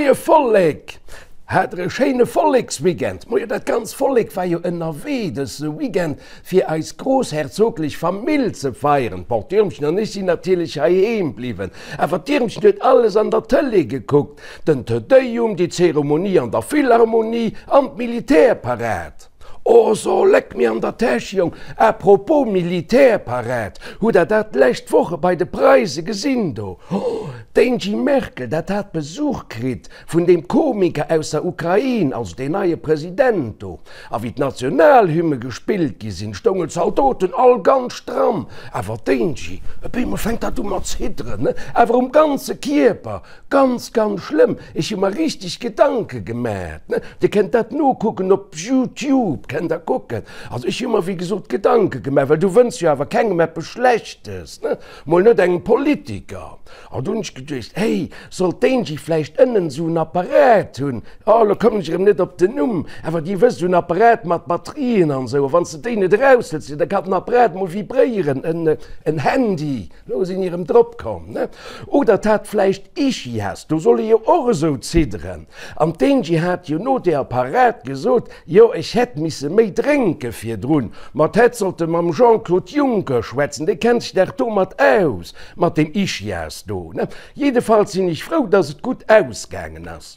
Moie Vollek! Hat der e schéine Volleksweekend? Moie, dat ganz Vollek war jo ënnerwee dëse Weekend fir eis groussherzoglech Famill ze feieren. Bon, d'Irmchen an ech sinn natierlech heiheem bliwwen, awer d'Irmchen huet alles an der Tëlee gekuckt, den Te Deum, déi Zeremonie an der Philharmonie an d'Militärparad. Oh so, leck mir an der Täsch, Jong! À propos Militärparad, hutt der dat d'lescht Woche bei de Preise gesinn do? Oh, d'Angie Merkel, dat hat Besuch kritt vun deem Komiker aus der Ukrain, also deen neie President do. A wéi d'Nationalhymne gespillt gi sinn, stoungen d'Zaldoten all ganz stramm. Awer d'Angie, op eemol fänkt dat u mat zidderen, ne? Awer um ganze Kierper. Ganz ganz schlëmm, ech hu mer richteg Gedanke gemat, ne, dir kennt dat nokucken op Youtube, kennt der kucken, also ech hu mer wéi gesot Gedanke gemat, well du wënns jo awer kengem eppes Schlechtes, ne, mol net engem Politiker. An du hunn ech geduecht, hey, sollt d'Angie vläicht ënnen esou en Apparat hunn, oh lo kommen ech erëm net op den Numm, awer dir wësst, esou en Apparat mat Batterien an esou, a wann s de déi net eraushëls, da kann den Apparat mol vibréieren, en Handy. Lo sinn erëm drop komm, ne? Oder d'hat vläicht Ischias, do soll ee jo och esou zidderen. An d'Angie hat jo no deer Parad gesot, jo ech hätt misse méi drénke virdrun. Ma d'hätt sollte mam Jean-Claude Juncker schwätzen, dee kennt sech dach domat aus, mat deem Ischias do, ne? Jiddefalls sinn ech frou, dass et gutt ausgaangen ass.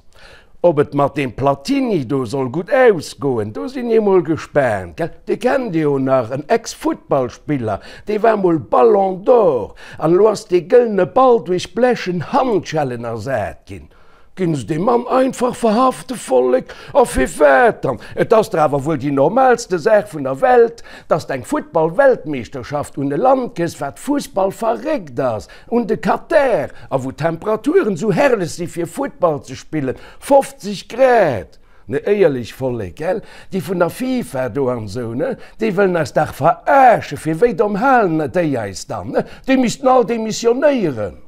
Ob et mat deem Platini do soll gutt ausgoen, do sinn ech mol gespaant, gell? Dee kennt Dir jo nach, en Ex-Futtballspiller, dee war mol Ballon d'Or, an elo ass dee gëllene Ball duerch blechen Handschellen ersat ginn. Ginn se dee Mann einfach verhafte, Vollek? A firwat dann? Et ass dach awer wuel déi normalste Saach vun der Welt, dass d'eng Futtball-Weltmeeschterschaft un e Land gëss, wat fussballverréckt ass. Un de Katar, a wou d'Temperaturen esou herrlech si fir Futtball ze spillen, 50 Grad! Ne éierlech Vollek, gell? Déi vun der FIFA do an esou, ne, déi wëllen eis dach veraaschen, fir wéi domm halen déi eis dann, ne? Déi missten all demissionéieren,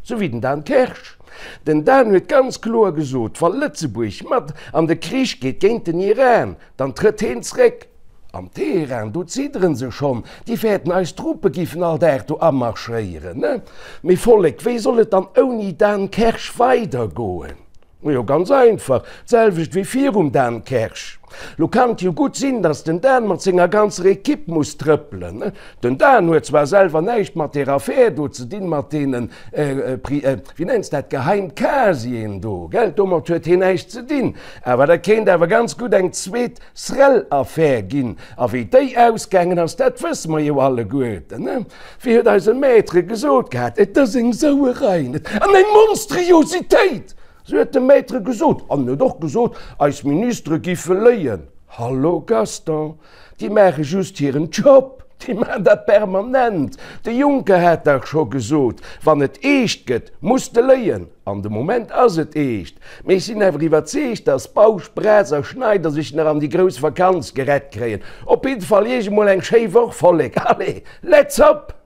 sou wéi den Dan Kersch. Den Dan huet ganz kloer gesot, wa Lëtzebuerg mat an de Krich geet géint den Iran, dann trëtt heen zréck. Am Teheran, do zidderen se schonn, déi fäerten eis Truppe giffen all Dag do amarschéieren, ne? Mee Vollek, wéi soll et dann ouni Dan Kersch weidergoen? Majo, ganz einfach, d'selwecht wéi virum Dan Kersch. Lo kann et jo gutt sinn, datt den Dan mat senger ganzer Ekipp muss trëppelen, ne? Den Dan huet zwar selwer näischt mat där Affär do ze dinn, mat deenen, wéi nenns dat, Geheimcasieren do, gell, domat huet hien näischt ze dinn, awer dat kéint awer ganz gutt eng zweet Srel-Affär ginn. A wéi déi ausgaangen ass, dat wësse mer jo alleguerten, ne? Wéi huet eise Maître gesot gehat, Et ass eng Sauerei, net? An eng Monstriositéit! Sou huet de Maître gesot. An en huet och gesot, eis Ministere giffe léien. Hallo Gaston, déi maache just hiren Job, déi maachen dat permanent. De Juncker hat dach scho gesot, wann et eescht gëtt, muss de léien. An de Moment ass et eescht. Mee ech sinn awer iwwerzeegt, dass Bausch, Braz a Schneider sech nach an déi grouss Vakanz gerett kréien. Op jidde Fall Iech emol eng schéi Woch, Vollek. Allez, let's hop!